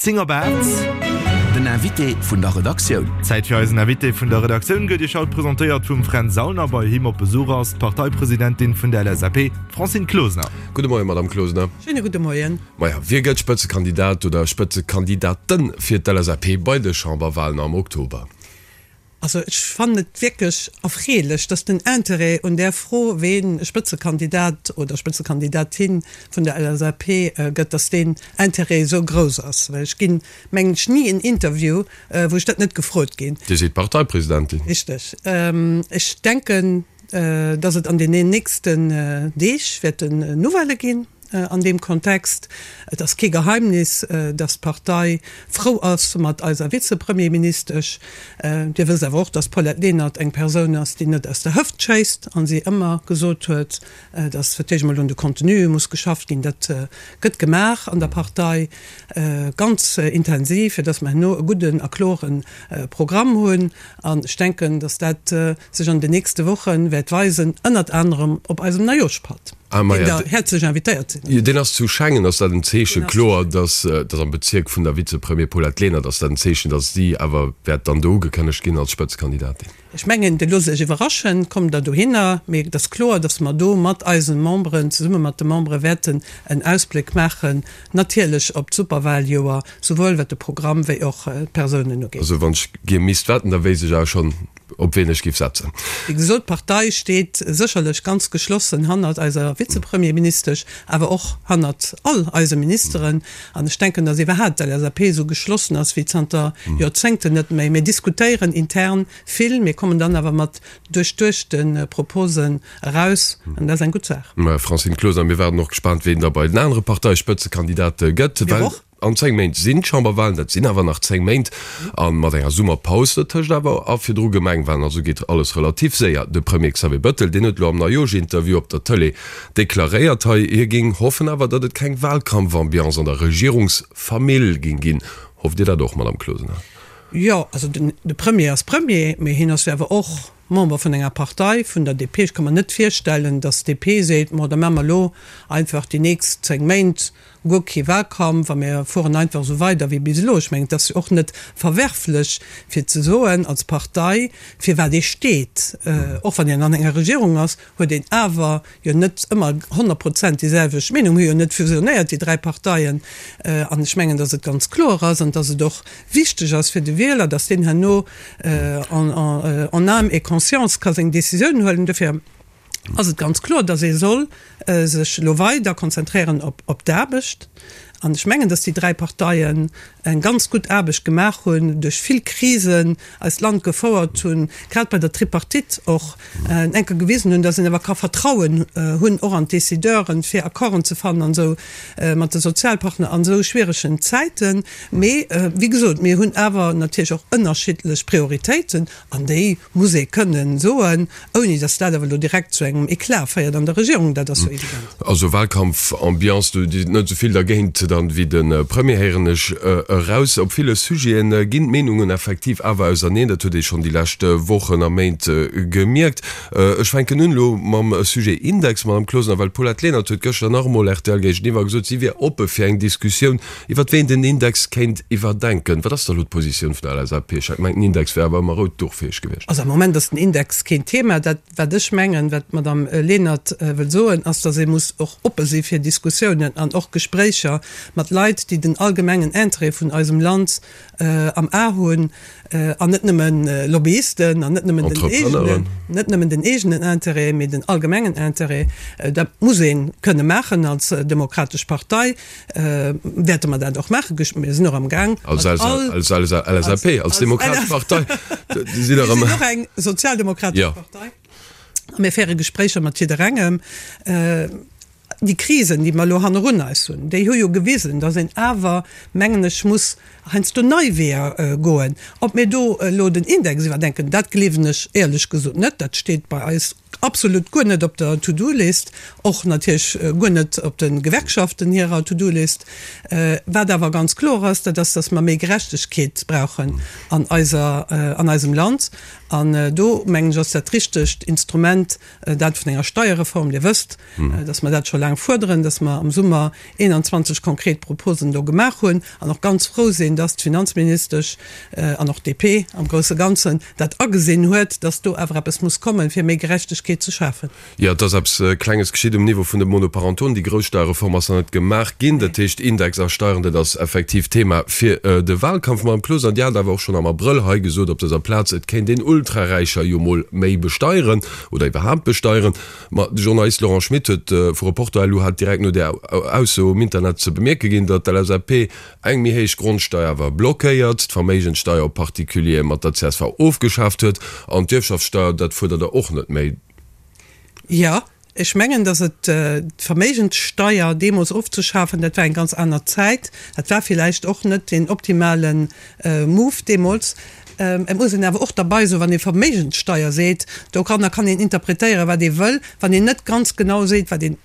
10 op 8. Den Invité vun der Redaktioun. Zäit fir eisen Invité vun der Redaktioun gëtt Iech haut presentéiert vum Fränz Saulner. Bei him op Besuch ass d'Parteipresidentin vun der LSAP, d'Francine Closener. Gudde Moien, Madame Closener. Schéine gudde Moien. Maja, wie gëtt Spëtzekandidat oder Spëtzekandidaten fir d'LSAP bei de Chamberwalen am Oktober? Also ech fannen et wierklech erfreelech, dass den Interêt un där Fro, ween Spëtzekandidat oder Spëtzekandidatin vun der LSAP gëtt, dass deen Interêt esou grouss ass. Well ech ginn, mengen ech, ni en Interview, wou ech dat net gefrot ginn. Dir sidd Parteipresidentin. Richteg. Ech denken, dass et an deenen nächsten Deeg wäerten Nouvellë ginn. An deem Kontext, et ass kee Geheimnis, dass d'Partei frou ass mat eiser Vizepremierministesch. Dir wësst awer och, dass d'Paulette Lenert eng Persoun ass, déi net aus der Hëft schéisst a si ëmmer gesot huet, dass fir d'éischt emol un de Contenue muss geschafft ginn. Dat gëtt gemaach an der Partei ganz intensiv, fir dass mer herno e gudden a klore Programm hunn. An ech denken, dass dat sech an den nächste Woche wäert weisen, ënnert anerem op eisem Neijooschpatt, deen Der häerzlech invitéiert sidd. Jo, deen ass zu Schengen. Ass dat en Zeechen, kloer, dass dass am Bezierk vun der Vizepremier Paulette Lenert, ass dat en Zeechen, dass si awer wäert dann do ugekënnegt ginn als Spëtzekandidatin? Ech mengen, Dir loosst Iech iwwerraschen, kommt Der dohinner. Mee et ass kloer, dass mer do mat eise Memberen, zesumme mat de Membere wäerten en Ausbléck maachen, natierlech op d'Superwahljoer, souwuel wat de Programm wéi och d'Persounen ugeet. Also wann ech gier misst wetten, da wéisst ech awer schonn, op wien ech giff setzen. Wéi gesot, d'Partei steet sécherlech ganz geschlossen hannert eiser Vizepremierministesch, awer och hannert all eise Ministeren. An ech denken, datt iwwerhaapt d'LSAP esou geschlossen ass wéi zanter Joerzéngten net méi. Mir diskutéieren intern vill, mir kommen dann awer mat duerchduechte Proposen eraus, an dat ass eng gutt Saach. Mme Francine Closener, Mir waarden och gespaant, wien da bei den anere Parteispëtzekandidate gëtt. Mir och. An 10 Méint sinn d'Chamberwahlen, dat sinn awer nach 10 Méint, a mat enger Summerpaus dotëscht awer a virdru Gemengwahlen, also geet alles relativ séier. De Premier Xavier Bettel, deen huet elo am Neijooschinterview op der Tëlee deklaréiert hei, hie géing hoffen awer, datt et keng Wahlkampfambiance an der Regierungsfamill géing ginn. Hofft Dir dat och, Madame Closener? Jo, also de Premier ass Premier, mee hien ass jo awer och Member vun enger Partei, vun der DP. Ech ka mer net virstellen, datt d'DP seet, Ma da maache mer elo einfach déi nächst 10 Méint guer kee Wahlkampf a mir fueren einfach esou weider wéi bis elo. Ech mengen, et ass jo och net verwerflech fir ze soen als Partei, fir wat ee steet. Och wann een an enger Regierung ass, huet een awer jo net ëmmer 100 Prozent déi selwecht Meenung. Mir hu jo net fusionéiert, déi 3 Parteien. An ech mengen, datt et ganz kloer ass an datt et och wichteg ass fir de Wieler, datt deen herno en âme et conscience ka seng Décisioun huelen. Dofir ass et ganz kloer, datt ee soll sech elo weider konzentréieren op d'Aarbecht. An ech mengen, datt déi 3 Parteien eng ganz gutt Aarbecht gemaach hunn, duerch vill Krisen eist Land gefouert hunn, grad bei der Tripartite och eng Kéier gewisen hunn, datt een awer ka Vertrauen hunn och an d'Decideuren, fir Accorden ze fannen an esou mat de Sozialpartner an esou schwieregen Zäiten. Mee wéi gesot, mir hunn awer natierlech och ënnerschiddlech Prioritéiten An déi muss ee kënnen soen, ouni datt dat awer elo direkt zu engem Eclat féiert an der Regierung, dat ass jo evident. Also Wahlkampfambiance, do si net esou vill dergéint dann wéi de Premier, héieren ech eraus. Op ville Sujete ginn d'Meenungen effektiv awer auserneen, dat huet ee schonn déi lescht Wochen a Méint gemierkt. Ech fänken un elo mam Sujet Index, Madame Closener, well d'Paulette Lenert huet gëschter nach emol rtl géigeniwwer gesot, si wier oppe fir eng Diskussioun Iwwert ween den Index kéint iwwerdenken. Wat ass da elo d'Positioun vun der LSAP? Ech hat gemengt, den Index wär awer ëmmer rout Duchfäeg gewiescht. Also am Moment ass den Index keen Thema. Dat, wat ech mengen, wat d'Madame Lenert wëll soen, ass, datt ee muss och oppe si fir Diskussiounen an och Gespréicher mat Leit, déi den allgemengen Interêt vun eisem Land am A hunn an net nëmme Lobbyisten an net nëmmen den eegenen, net nëmmen den eegenen Interêt, mee den allgemengen Interêt. Dat muss ee kënne maachen als demokratesch Partei. Wäerte mer dat och maachen. Mir sinn och am Gaang. Als LSAP, als Demokratesch Partei. Mir sinn och eng sozialdemokratesch Partei. A mir féiere Gespréicher mat jidderengem. Déi Krisen, déi mer elo hannerun eis hunn, déi hu jo gewisen, datt een awer, mengen ech, muss heiansdo nei Weeër goen. Ob mir do elo den Index iwwerdenken, dat gleewen ech éierlech gesot net. Dat steet bei eis absolut guer net op der To-do-List, och natierlech guer net op de Gewerkschaften hirer To-do-List. Wat awer ganz kloer ass, dat ass, datt mer méi Gerechtegkeet brauchen an eiser, an eisem Land. An do, mengen ech, ass dat richtegt Instrument dat vun enger Steierreform. Dir wësst, datt mer dat scho laang. laang fuerderen, dass mer am Summer 21 konkret Proposen do gemaach hunn an och ganz frou sinn, dass d'Finanzministesch an och d'DP am grousse Ganzen dat agesinn huet, dass do awer eppes muss kommen, fir méi Gerechtegkeet ze schafen. Jo, et ass eppes Klenges geschitt um Niveau vun de Monoparentonen. Déi grouss Steierreform ass nach net gemaach ginn. Dat heescht, Index a Steieren, dat ass effektiv Thema fir de Wahlkampf. Madame Closener, Dir hat awer och schonn am Abrëll hei gesot op dëser Plaz, et kéint een Ultraräicher jo mol méi besteieren oder iwwerhaapt besteieren. Ma de Journalist Laurent Schmit huet vu Reporter-LU hat direkt no där Ausso um Internet ze bemierke ginn, datt d'LSAP eng méi héich Grondsteier awer blockéiert, d'Verméigenssteier op Particuliere mat der csv ofgeschaaft huet an d'Ierfschaftssteier, dat fuerdert der och net méi. Jo, ech mengen, datt et d'Verméigenssteier deemools ofzeschafen, dat war eng ganz aner Zäit. Dat war villäicht och net deen optimale Move deemools. Et muss een awer och derbei soen, wann ee Verméigenssteier seet, doranner kann een interpretéieren, wat ee wëll, wann een net ganz genau seet, wat een,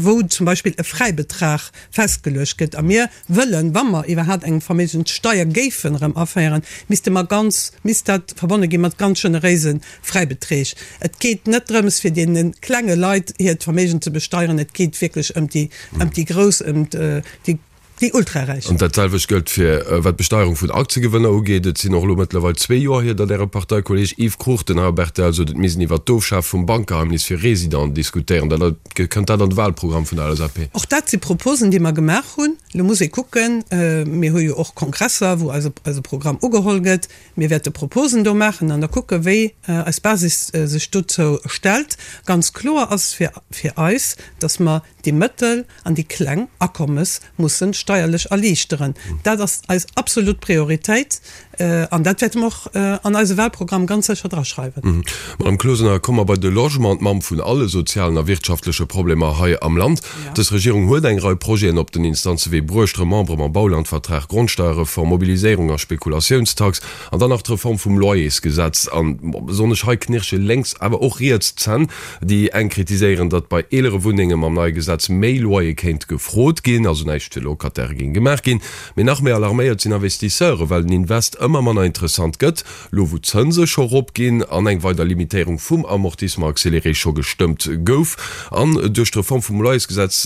wou zum Beispill e Fräibetrag festgeluecht gëtt. A mir wëllen, wa mer iwwerhaapt eng Verméigenssteier géifen erëm aféieren, misste mer ganz, misst dat verbonne gi mat ganz generéise Fräibeträg. Et geet net drëms, fir deene klenge Leit hiert Verméigen ze besteieren, et geet wierklech ëm déi, ëm déi Grouss, ëm déi, déi Ultraräich. An dat selwecht gëllt fir wat d'Besteierung vun Aktiegewënner ugeet. Et sinn och elo mëttlerweil zwee Joer hier, datt Äre Parteikolleeg Yves Cruchten hei op rtl sot, et misst een iwwert d'Ofschaf vum Bankgeheimnis fir Residenten diskutéieren. Dat kënnt dat an de Wahlprogramm vun der LSAP? Och dat si Proposen, déi mer gemaach hunn. Elo muss ee kucken, mir hu jo och Kongresser, wou eise eise Programm ugeholl gëtt. Mir wäerte Proposen do maachen an da kucke wéi eis Basis sech dozou stellt. Ganz kloer ass fir fir eis, datt mer déi mëttel an déi kleng Akommes mussen steierlech erliichteren. Dat ass eis absolut Prioritéit an dat wäerte mer och an eise Wahlprogramm ganz sécher draschreiwen. Madame Closener, komme mer bei de Logement, d'Mamm vun alle sozialen a wirtschaftleche Problemer hei am Land. Dës Regierung huet eng Rei Projeten op den Instanzewee bruecht, Remembrement, Baulandvertrag, Grondsteierreform, Mobiliséierung a Spekulatiounstax an dann nach d'Reform vum Loyersgesetz. An besonnesch hei knirsche lénks, awer och riets d'Zänn. Déi eng kritiséieren, datt bei eelere Wunnenge mam neie Gesetz méi Loyer kéint gefrot ginn, also näischt fir Locataire géing gemaach ginn. Mee nach méi alarméiert sinn Investisseure, well den Invest ëmmer manner interessant gëtt, lo wou d'Zënse scho rop ginn an eng weider Limitéierung vum Amortissement accéléré scho gestëmmt gouf an duerch d'Reform vum Loyersgesetz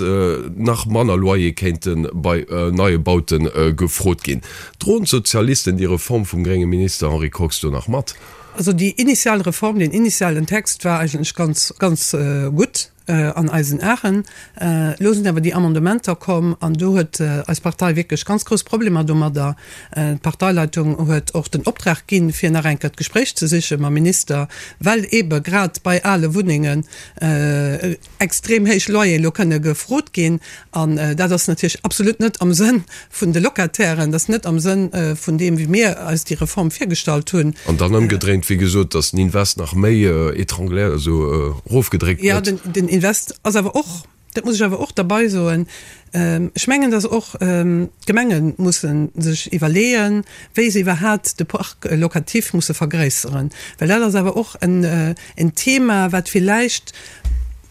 nach manner Loyer kéinte bei neie Baute gefrot ginn. Droen d'Sozialisten déi Reform vum grénge Minister Henri Kox do nach mat? Also déi initial Reform, deen initialen Text war eigentlech ganz, ganz gutt an eisen Aen. Elo sinn awer déi Amendementer komm an do huet eis Partei wierklech ganz grouss Problemer domadder. D'Parteileitung huet och den Optrag ginn, fir nach eng Kéier d'Gespréich ze siche mam Minister, well eebe grad bei ale Wunnengen extrem héich Loyeren elo kënne gefrot ginn. An dat ass natierlech absolut net am Sënn vun de Locatairen, dat ass net am Sënn vun deem, wéi mir eis déi Reform virgestallt hunn. An dann ëmgedréint, wéi gesot, datt den Invest nach méi étrangléiert, also erofgedréckt gëtt. Jo, den Invest ass awer och, dat muss ech awer och derbei soen, ech mengen, datt och d'Gemenge musse sech iwwerleeën, wéi se iwwerhaapt de Parc locatif musse vergréisseren, well dat ass awer och en Thema, wat villäicht,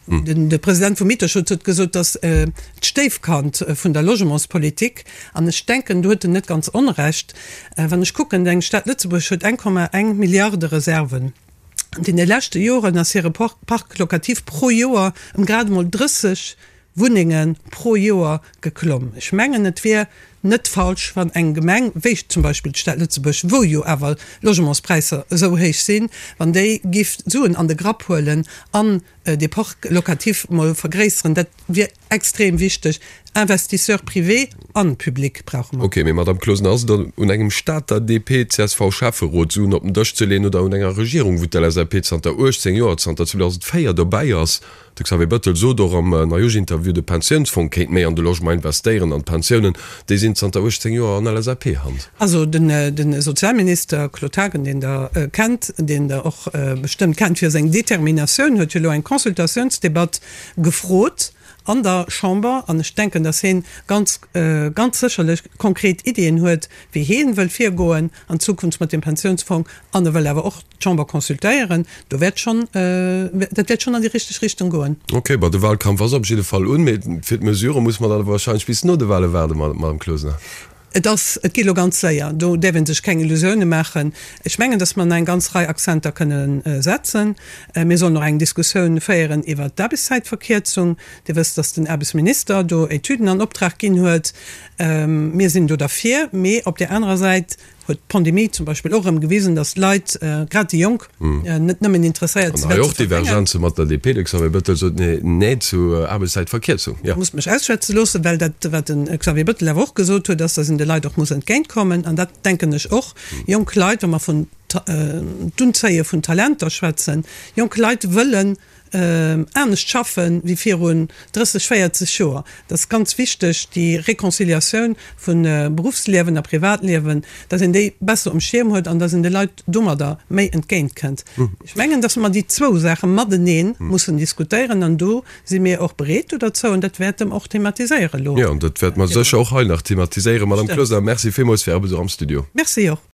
de President vum Mieterschutz huet gesot, datt d'Stéifkand vun der Logementspolitik, an ech denken, do huet en net ganz Onrecht, wann ech kucken, eng Stad Lëtzebuerg huet 1,1 Milliarde Reserven. An deene leschte Joren ass hire Parc locatif pro Joer ëm grad emol 30 Wunnenge pro Joer geklomm. Ech mengen, et wier net falsch, wann eng Gemeng, wéi zum Beispill d'Stad Lëtzebuerg, wou jo awer d'Logementspräisser esou héich sinn, wann déi giff Suen an de Grapp huelen an dee Parc locatif mol vergréisseren. Dat wier extrem wichteg. Investisseurs privés an publics brauche mer. Ok, mee Madame Closener, ass et dann un engem Stater DP-CSV-Schäfferot, Suen op den Dësch ze leeën oder un enger Regierung, wou d'LSAP zanter 18 Joer, zanter 2004 dobäi ass? De Xavier Bettel sot och am Neujooschinterview, de Pensiounsfong kéint méi an de Logement investéieren an d'Pensiounen, déi sinn zanter 18 Joer an LSAP-Hand. Also de Sozialminister Claude Haagen, deen Der kennt, deen Der och bestëmmt kennt fir seng Determinatioun, huet jo elo eng Consultatiounsdebatt gefrot an der Chamber. An ech denken, datt hien ganz, ganz sécherlech konkret Iddien huet, wéi hie wëll virgoen an Zukunft mat dem Pensiounsfong. An e wëll awer och d'Chamber consultéieren. Do wäert schonn, dat wäert schonn an déi richteg Richtung goen. Ok, bon, de Wahlkampf ass op jidde Fall un, mee fir d'Mesurë muss mer dann awer wahrscheinlech bis no de Wahle waarden, Madame Closener. Et ass, et geet elo ganz séier, do däerf ee sech keng Illusioune maachen. Ech mengen, datt mer nach eng ganz Rei Akzenter kënne setzen. Mir sollen och eng Diskussioun féieren iwwert d'Aarbechtszäitverkierzung. Dir wësst, datt den Aarbechtsminister do Etüden an Optrag ginn huet. Mir sinn do derfir, mee op där anerer Säit huet d'Pandemie zum Beispill och erëm gewisen, datt d'Leit, grad déi Jonk, net nëmmen interesséiert sinn, wat ze verdéngen. An hei och Divergenze mat der DP. De Xavier Bettel sot Nee zu Aarbechtszäitverkierzung. Jo. Musst mech ausschwätze loossen, well dat, wat de Xavier Bettel awer och gesot huet, ass, datt een de Leit och muss entgéintkommen. An dat denken ech och. Jonk Leit, wa mer vun d'Unzéie vun Talenter schwätzen, jonk Leit wëllen anescht schaffe wéi virun 30, 40 Joer. Dat ass ganz wichteg, déi Réconciliatioun vu Beruffsliewen a Privatliewen, datt een déi besser um Schierm huet an datt een de Leit domadder méi entgéint kënnt. Ech mengen, datt mer déi zwou Saache matenee mussen diskutéieren an do si mir och bereet do derzou an dat wäerte mer och thematiséiere elo. Jo, an dat wäerte mer sécher och hei nach thematiséieren. Madame Closener, Merci villmools fir Är Besuch am Studio. Merci och.